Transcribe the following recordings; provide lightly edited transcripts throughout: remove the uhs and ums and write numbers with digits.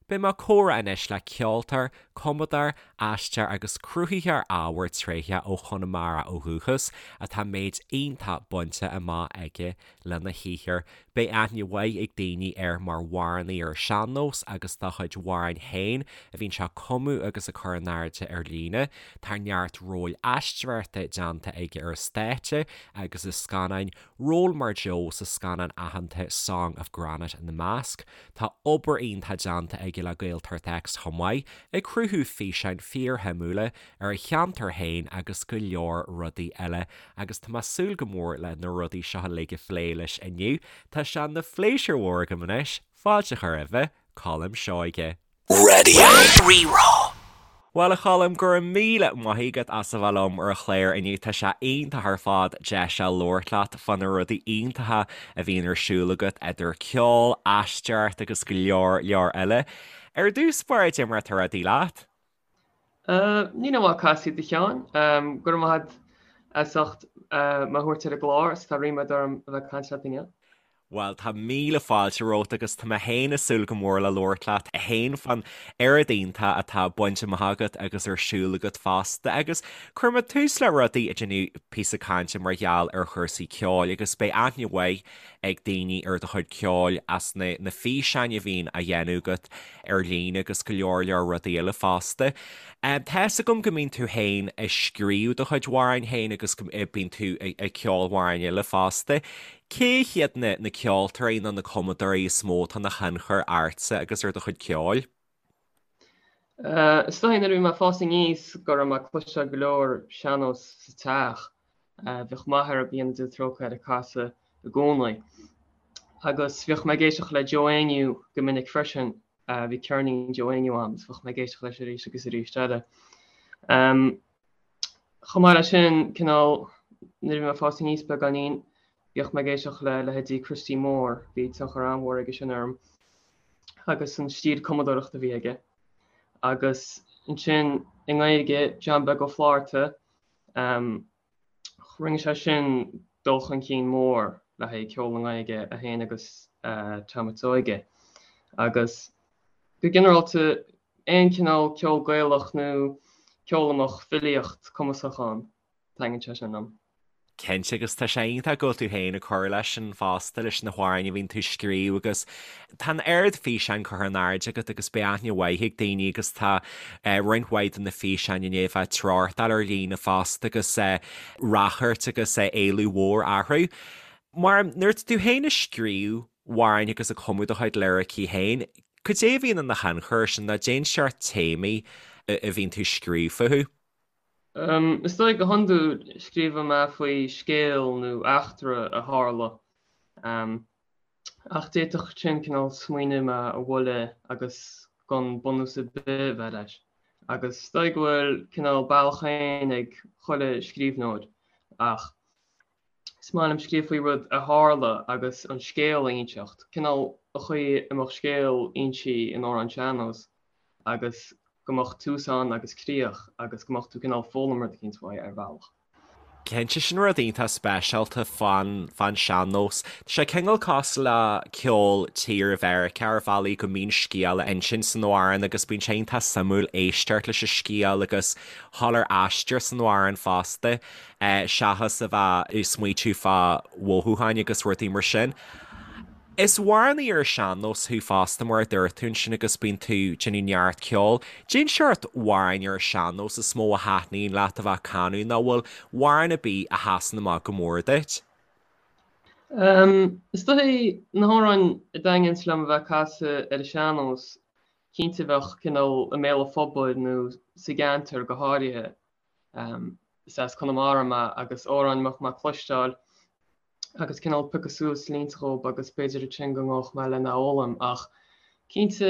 Beidh mé ag comhrá anois le ceoltóir, cumadóir, aisteoir agus cruthaitheoir ábhair tréitheach ó Chonamara ó dhúchas atá méid iontach bainte amach aige lena shaothar. Beidh aithne mhaith ag daoine air mar amhránaí ar an sean-nós agus dá chuid amhráin féin a bhíonn sé ag cumadh agus ag cur in airde ar líne. Tá neart róil aisteoireachta déanta aige ar an stáitse agus i scannáin, ról mar Joe sa scannán aitheanta Song of Granite ina measc. Tá obair iontach déanta aige le Gaeltacht X chomh maith, ag cruthú físeáin fíorshuimiúla ar a cheantar féin agus go leor rudaí eile agus tá mé ag súil go mór le na rudaí seo uilig a phlé leis inniu. Tá sé ina phléisiúr mhór agam anois fáilte a chur roimhe, Colm Seoige. Raidió Rí-Rá. Bhuel a Choilm, go raibh míle maith agat as a bheith liom ar an chlár inniu. Tá sé iontach ar fad deis a labhairt leat fá na rudaí iontacha a bhíonn ar siúl agat idir ceol, aisteoireacht agus go leor leor eile. Ar dtús báire, cad é mar atá rudaí leat? Ní nach maith casta iad a Sheáin. Go raibh maith agat as ucht mé a thabhairt ar an gclár is tá ríméad orm a bheith ag caint leat inniu. Bhuel, tá míle fáilte romhat agus tá mé féin ag súil go mór le labhairt leat féin fán oiread iontach atá bainte amach agat agus ar siúl agat fosta. Agus cuirfidh mé tús le rudaí ag déanamh píosa cainte mar gheall ar chúrsaí ceoil agus beidh aithne mhaith ag daoine ar do chuid ceoil as na na físeáin a bhíonn á dhéanamh agat ar líne agus go leor leor rudaí eile fosta. Tá 'fhios agam go mbíonn tú féin ag scríobh do chuid amhráin féin agus go mbíonn tú ag ceol amhráin eile fosta. Cé hiad na na ceoltóirí nó na cumadóirí is mó atá ina thionchar ortsa agus ar do chuid ceoil? Is dóigh nuair a bhí mé ag fás aníos go raibh mé ag cloisteáil go leor sean-nós sa teach. Bhíodh m'athair, go ndéana Dia trócaire air, ag casadh i gcónaí. Agus bhíodh mé ag éisteacht le Joe Éinniú go minic freisin. Bhí ceirnín Joe Éinniú agam agus bhíodh mé ag éisteacht leis arís agus arís eile. Chomh maith leis sin, cineál, nuair a bhí mé ag fás aníos beagáinín, bhíodh mé ag éisteacht le leithéidí Christy Moore, bhí tionchar an-mhór aige sin orm agus an stíl cumadóireachta a bhí aige. Agus ansin i nGaeilge, John Beag Ó Flatharta, rinne sé sin dul chun cinn mór le haghaidh ceol i nGaeilge, é féin agus Tom a' tSeoighe. Agus go ginearálta, aon chineál ceol Gaelach nó ceol a mbeadh filíocht cumasach ann, taitníonn sé sin liom. Cinnte, agus tá sé iontach go bhfuil tú féin ag cur leis sin fosta, leis na hamhráin a bhíonn tú ag scríobh agus tá an oiread físeáin curtha in airde agat agus beidh aithne mhaith ag daoine agus tá roinnt mhaith de na físeáin i ndiaidh a bheith ag treochtáil ar líne fosta agus ráchairt agus éileamh mhór orthu. Mar nuair atá tú féin ag scríobh amhráin agus ag cumadh do chuid liricí féin, Cad é a bhíonn ina thionchar air sin nó cén seort téamaí a bhíonn tú ag scríobh fúthu? Is dóigh go hiondúil scríobhann mé faoi scéal nó eachtra a tharla. Ach d'fhéadfadh sin cineál smaoineamh mé a bhualadh agus gan bunús ar bith a bheith leis. Agus is dóigh go bhfuil cineál bealach féin ag chuile scríbhneoir ach Is maith liom scríobh faoi rud a tharla agus an scéal a inseacht, cineál an chaoi a mbeadh scéal inste in amhrán sean-nós agus go mbeadh tús ann agus críoch agus go mbeadh tú cineál foghlaim rud eicínt uaidh ar bhealach. Cinnte, sin rud iontach speisialta fán fán sean-nós. Tá sé cineál cosúil le ceol tíre Mheiriceá ar bhealaí go mbíonn scéal á insint san amhrán agus bíonn sé iontach suimiúil éisteacht leis an scéal agus dhul ar aistear san amhrán fosta. seachas a bheith ag smaoitiú fá mhothúcháin agus rudaí mar sin. Is amhránaí ar an sean-nós thú fosta mar a dúirt tú ansin agus bíonn tú ag déanamh neart ceoil. Cén seort amhráin ar an sean-nós is mó a thaitníonn leat a bheith ag canadh nó bhfuil amhrán ar bith a sheasann amach go mór duit? Is dóigh na hamhráin a dtaitníonns liom a bheith ag casadh ar an sean-nós, cinnte bheadh cineál i mbéal an phobail nó sa gceantar go háirithe. Is as Conamara mé agus amhráin a mbeadh mé ag cloisteáil agus cineál piocadh suas línte dhób agus b'fhéidir ansin go ngabhfadh mé lena fhoghlaim ach cinnte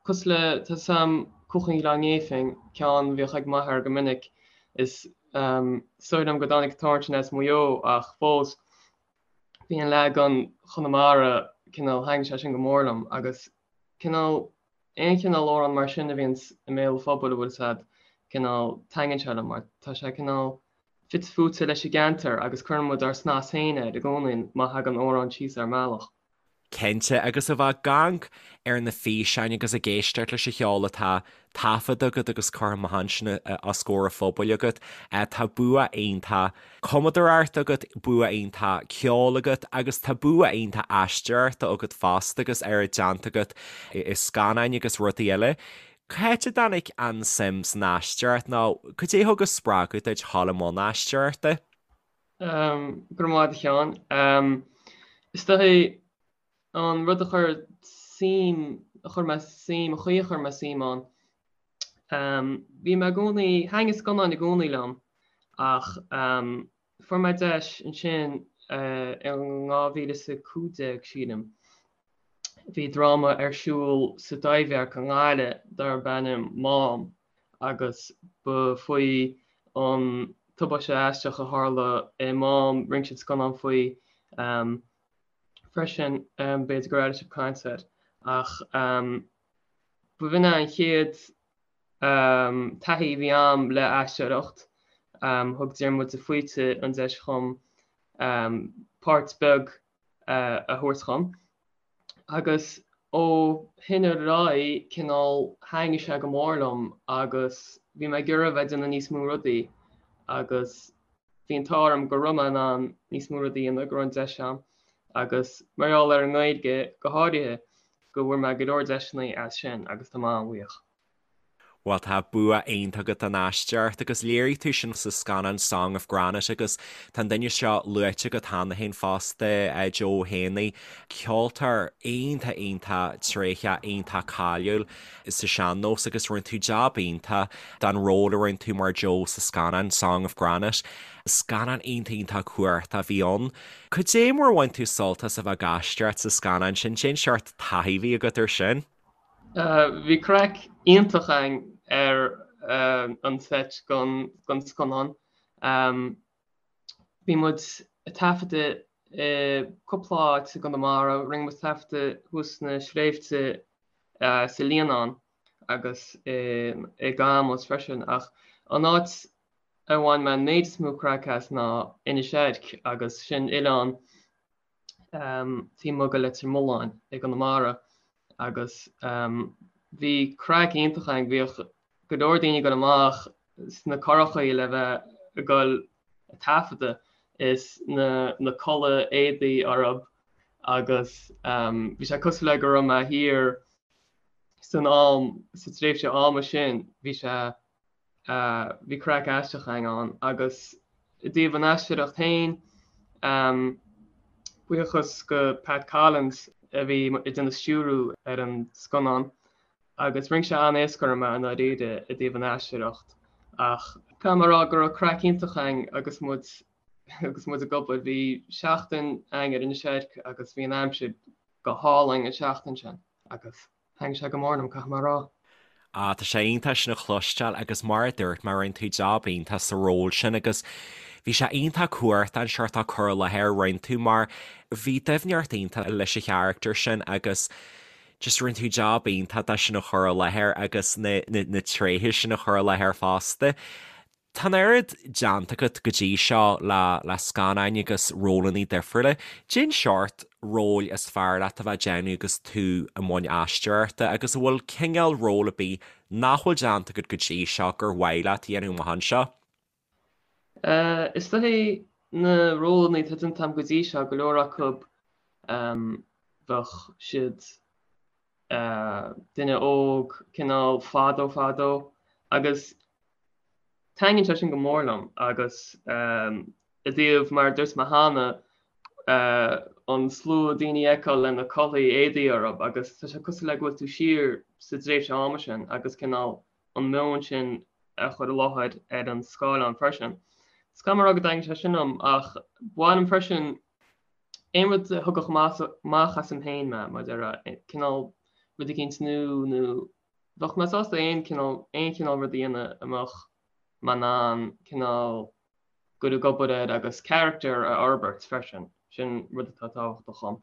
cosúil le tá 'fhios a'm Cuach an Ghleann Néifinn, ceann a bhíodh ag m'athair go minic is is dóigh liom go dtáinig an t-amhrán sin as Maigh Eo ach fós bhí an leagan Chonamara cineál thaitnigh sé sin go mór liom agus cineál aon chineál amhrán mar sin a bhíonns i mbéal an phobail a bhfuil 'fhios a'd, cineál, taitníonn sé liom mar tá sé cineál fite fuaite leis an gceantar agus cuireann muid ár snas féin air i gcónaí má thagann amhrán síos ár mbealach. Cinnte, agus a bheith ag amharc ar na físeáin agus ag éisteacht leis an cheol atá taifeadta agat agus curtha amach ansin os comhair an phobail agat, tá bua iontach cumadóireachta agat, bua iontach ceoil agat agus tá bua iontach aisteoireachta agat fosta agus oiread déanta agat i scannáin agus rudaí eile. Cá háit a dtáinig an suim san aisteoireacht nó cad é a thug an spreagadh duit dhul i mbun aisteoireachta? Go raibh maith agat a Sheáin. Is dóichí an rud a chuir suim, a chuir mé suim, an chaoi a chuir mé suim ann, bhí mé i gcónaí, thaitnigh scannáin i gcónaí liom ach fuair mé deis ansin in 2015, sílim, bhí dráma ar siúl sa Taibhdhearc i nGaillimh darb ainm Mám agus ba faoi an tubaiste aisteach a tharla i Mám, rinne siad scannán faoi freisin, b'fhéidir gur airigh sibh caint air, ach b'in é an chéad taithí a bhí a'm le aisteoireacht. Thug Diarmuid de Faoite an deis dhom páirt beag a thabhairt dhom. Agus ó shin ar aghaidh, cineál, thaitnigh sé go mór liom agus bhí mé ag iarraidh a bheith ag déanamh níos mó rudaí agus bhí an t-ádh orm go raibh mé in ann níos mó rudaí a dhéanamh, go raibh an deis a'm agus mar gheall ar an nGaeilge go háirithe, go bhfuair mé go leor deiseanna as sin agus tá mé an-bhuíoch. Bhuel, tá bua iontach agat don aisteoireacht agus léirigh tú sin sa scannán Song of Granite agus tá an duine seo luaite agat cheana féin fosta, Joe Ó hÉanaí, ceoltóir iontach iontach tréitheach, iontach cáiliúil sa sean-nós agus rinne tú jab iontach don ról a rinne tú mar Joe sa scannán Song of Granite. Scannán iontach iontach cumhachtach a bhí ann. Cad é mar a bhain tú sult as a bheith ag aisteoireacht sa scannán sin? Cén seort taithí a bhí agat air sin? Bhí craic iontach againn ar an seit don scannán. Bhí muid ag taifeadadh i cúpla áit i gConamara. Rinne muid taifeadadh thuas sna sléibhte sa Líonán agus i gCamus freisin. Ach an áit a bhain mé an méid is mó craic as ná Inis Eirc agus sin oileán taobh amuigh de Leitir Mealláin i gConamara agus bhí craic iontach againn. Bhíodh go leor daoine ag dul amach sna curachaí le bheith ag dul ag taifeadadh is na na culaith éadaí orthu agus bhí sé cosúil le go raibh mé thiar san am, sa tréimhse ama sin, bhí sé Bhí craic aisteach againn ann agus i dtaobh an aisteoireacht féin, buíochas go Pat Collins a bhí ag déanamh stiúrú ar an scannán agus rinne sé an-éasca orm é i ndáiríre i dtaobh an aisteoireacht ach caithfidh mé a rá go raibh craic iontach againn agus muid agus muid ag obair. Bhí seachtain againn ar Inis Eirc agus bhí an aimsir go hálainn an seachtain sin agus. Thaitnigh sé go mór liom, caithfidh mé a rá. Ah, tá sé iontach sin a chloisteáil agus mar a dúirt mé, rinne tú jab iontach sa ról sin agus bhí sé iontach cumhachtach an seort cur i láthair a rinne tú mar bhí doimhneacht iontach leis an charachtar sin agus just rinne tú jab iontach de sin a chur i láthair agus na, na, na tréithe sin a chur i láthair fosta. Tá an oiread déanta agat go dtí seo le le scannáin agus rólanna difriúla. Cén seort róil is fearr leat a bheith ag déanamh agus tú i mbun aisteoireachta agus an bhfuil cineál ról ar bith nach bhfuil déanta agat go dtí seo gur mhaith leat a dhéanamh amach anseo? Is dóichí na rólanna atá déanta agam go dtí seo, go leor acu bheadh siad duine óg, cineál fadó fadó agus taitníonn sé sin go mór liom agus i dtaobh mar a dúirt mé cheana an slua daoine a fheiceáil lena culaith éadaí orthu agus tá sé cosúil le go bhfuil tú siar sa dtréimhse ama sin agus cineál an meon sin a chur i láthair ar an scáileán freisin. Is caithfidh mé a rá go dtaitníonn sé sin liom ach ba mhaith liom freisin aon rud a thógfadh amach asam féin mé, mar a déarfá, cineál rud eicínt nua nó bheadh mé sásta aon cineál, aon chineál rud a dhéanamh a mbeadh mé in ann cineál dul ag obair air agus character a fhorbairt freisin, sin rud atá tábhachtach dhom.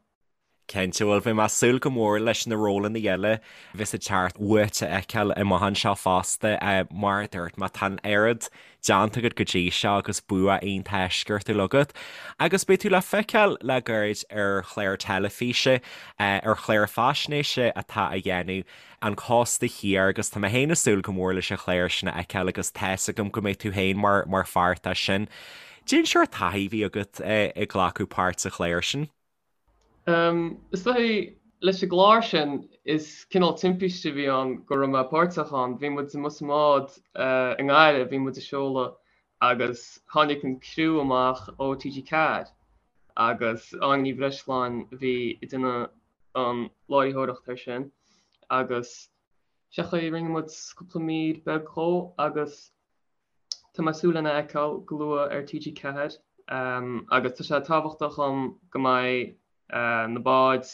Cinnte, bhuel beidh mé ag súil go mór leis na rólanna eile a bheas ag teacht uait a fheiceáil amach anseo fosta. Mar a dúirt mé, tá an oiread déanta agat go dtí seo agus bua iontach eisceachtúil agat. Agus beidh tú le feiceáil le gairid ar chlár teilifíse, ar chlár faisnéise atá á dhéanamh, An Cósta Thiar, agus tá mé féin ag súil go mór leis an chlár sin a fheiceáil agus tá's agam go mbeidh tú féin mar mar pháirt de sin. Cén seort taithí a bhí agat ag glacadh páirt sa chlár sin? Is dóigh, leis an gclár sin, is cineál timpiste a bhí ann go raibh mé páirteach ann. Bhí muid amuigh sa mbád i nGaillimh, bhí muid ag seoladh agus tháinig an criú amach ó TG4 agus Áine Ní Bhreisleáin a bhí ag déanamh an láithreoireacht air sin agus sé an chaoi a rinne muid cúpla mír beag dhó agus Tá mé ag súil lena fheiceáil go luath ar TG4 agus tá sé tábhachtach dhom go mbeidh na báid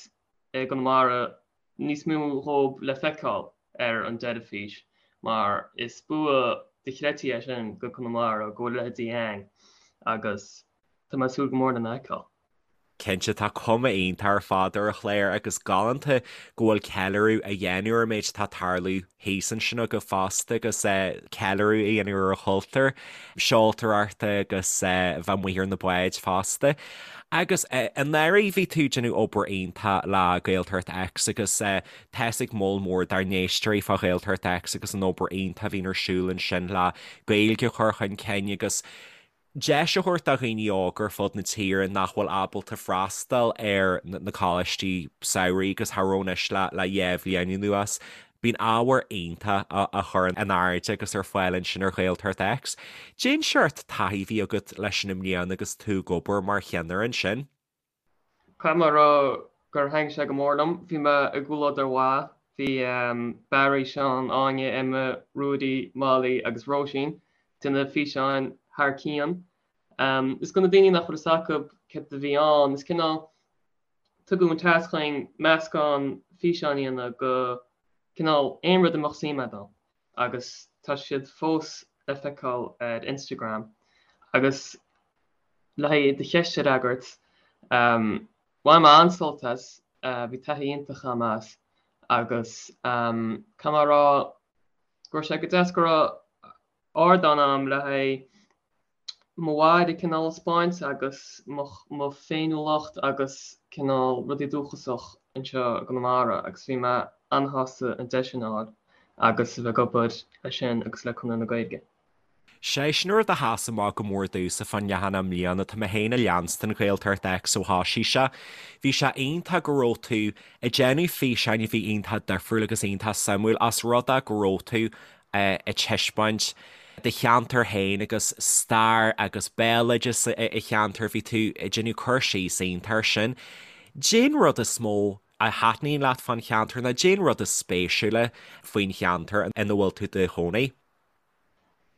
i gConamara níos mó dhóibh le feiceáil ar an dteilifís mar is bua dochreidte é sin go Conamara go bhfuil a leithéidí ann agus tá mé ag súil go mór lena fheiceáil. Cinnte, tá cuma iontach ar fad ar an chlár agus galánta go bhfuil ceiliúradh á dhéanamh ar an méid atá ag tarlú thíos ansin agaibh fosta agus ceiliúradh á dhéanamh ar an chultúr seoltóireachta agus bheith amuigh ar na báid fosta. Agus anuraidh bhí tú ag déanamh obair iontach le Gaeltacht X agus tá's ag moll mór dár n-éisteoirí fá Ghaeltacht X agus an obair iontach a bhíonn ar siúl ansin le Gaeilge a chur chun cinn agus deis a thabhairt do dhaoine óga ar fud na tíre nach bhfuil ábalta freastal ar na coláistí samhraidh agus cha raibh anois le le dhá bhliain anuas. Bíonn ábhar iontach á chur in airde agus ar fáil ansin ar Ghaeltacht X. Cén seort taithí a bhí agat leis sin i mbliana agus tú ag obair mar cheannaire ansin? Caithfidh mé a rá gur thaitin sé go mór liom. Bhí mé i gcomhluadar mhaith. Bhí Barry, Seán, Áine, Emma, Ruairí, Molly agus Róisín ag déanamh físeáin thar cionn. Is do na daoine nach bhfuil fhios acu céard a bhí ann, is cineál tugadh an tasc chugainn meascán físeáin a dhéanamh go cineál aon rud a mbeadh suim agat ann agus tá siad fós le feiceáil ar Instagram. Agus Le haghaidh do cheist a fhreagairt, bhain mé an-sult as, bhí taithí iontach agam as agus caithfidh mé a rá go raibh sé go deas go raibh ardán agam le haghaidh mo bhaile cineál a 'spáint agus mo féiniúlacht agus cineál rudaí dúchasach anseo i gConamara agus bhí mé an-sásta an deis sin a fháil agus a bheith ag obair leis sin agus le Conradh na Gaeilge. Sé sin rud a sheas amach go mór domhsa fán leathanach i mbliana, tá mé féin ag leanstan Ghaeltacht X ó thoisigh sé. Bhí sé iontach go raibh tú ag déanamh físeáin a bhí iontach difriúil agus iontach suimiúil ós rud é go raibh tú ag taispeáint do cheantar féin agus stair agus béaloideas an cheantair, bhí tú ag déanamh cur síos iontach air sin. Cén rud is mó a thaitníonn leat fán cheantar nó cén rud is spéisiúla faoin cheantar ina bhfuil tú i do chónaí?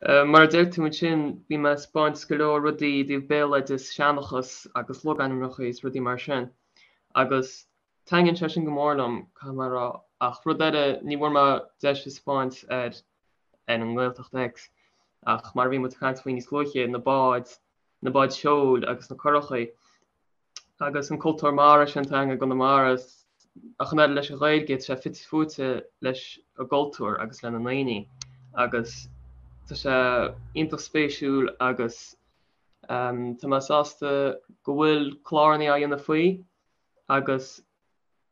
Mar a deir tú ansin, bhí mé ag 'spáint go leor rudaí i dtaobh béaloideas, seanchas agus logainmneacha is rudaí mar sin. Agus taitníonn sé sin go mór liom, caithfidh mé a rá. Ach rud eile, ní bhfuair mé deis a 'spáint ar ar an nGaeltacht X, ach mar a bhí muid ag caint faoi níos luaithe, na báid, na báid seoil agus na curachaí. agus an cultúr mara sin atá againn i gConamara, ach an oiread leis an Ghaeilge, tá sé fite fuaite leis an gcultúr agus le na ndaoine agus tá sé iontach spéisiúil agus tá mé sásta go bhfuil cláranna á dhéanamh faoi agus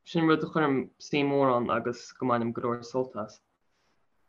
sin rud a chuirim suim mhór ann agus go mbainim go leor sult as.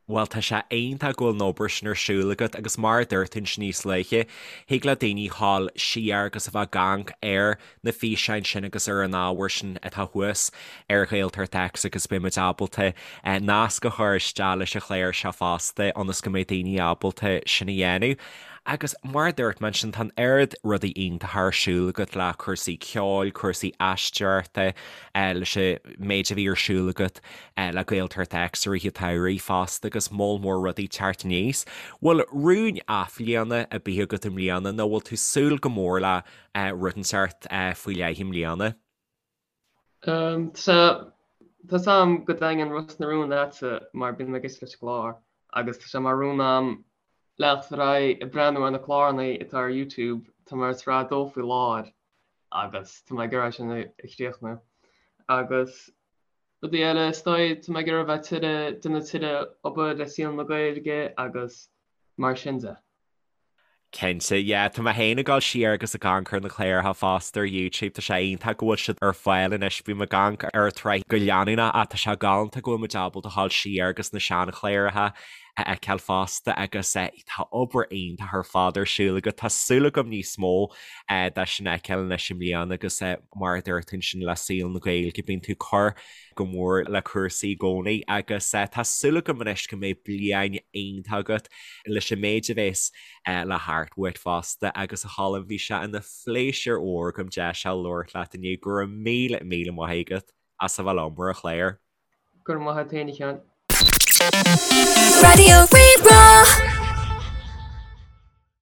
Bhuel, tá sé iontach go bhfuil an obair sin ar siúl agat agus mar a dúirt tú ansin níos luaithe, thig le daoine dhul siar agus a bheith ag amharc ar na físeáin sin agus ar an ábhar sin atá thuas ar Ghaeltacht X agus beidh muid ábalta nasc a chur isteach leis an chlár seo fosta ionas go mbeidh daoine ábalta sin a dhéanamh. Agus mar a dúirt mé ansin, tá an oiread rudaí iontacha ar siúl agat le cúrsaí ceoil, cúrsaí aisteoireachta, leis an méid a bhí ar siúl agat le Gaeltacht X i rith an tsamhraidh fosta agus moll mór rudaí ag teacht aníos. Bhfuil rún athbhliana ar bith agat i mbliana nó bhfuil tú ag súil go mór le rud inteacht faoi leith i mbliana? Tá 's a'm go dtaitníonn Ros na Rún leatsa mar bíonn mé ag éisteacht leis an gclár agus tá sé mar rún a'm leanacht ar aghaidh ag breathnú ar na cláranna atá ar YouTube, tá mé ar sraith 2 faoi láthair agus tá mé ag iarraidh sin a chríochnú. Agus rudaí eile, is dóigh, tá mé ag iarraidh a bheith tuilleadh, déanamh tuilleadh obair le saol na Gaeilge agus mar sin de. Cinnte, yeah. Tá mé féin ag dul siar agus ag amharc ar na cláracha fosta ar YouTube, tá sé iontach go bhfuil siad ar fáil anois, bím ag amharc ar an tsraith go leanúnach ach tá sé galánta go bhfuil muid ábalta a dhul siar agus na seanchláracha a fheiceáil fosta agus tá obair iontach ar fad ar siúl agat. Tá súil agam níos mó de sin a fheiceáil anois i mbliana agus mar a dúirt tú ansin le saol na Gaeilge, bíonn tú ag cur go mór le cúrsaí i gcónaí agus tá súil agam anois go mbeidh bliain iontach agat leis an méid a bheas le theacht uait fosta agus a Cholm bhí sé ina phléisiúr mhór agam deis a labhairt leat inniu. Go raibh míle míle maith agat as a bheith liom ar an chlár. Go raibh maith agat féin a Sheáin. Raidió Rí-Rá.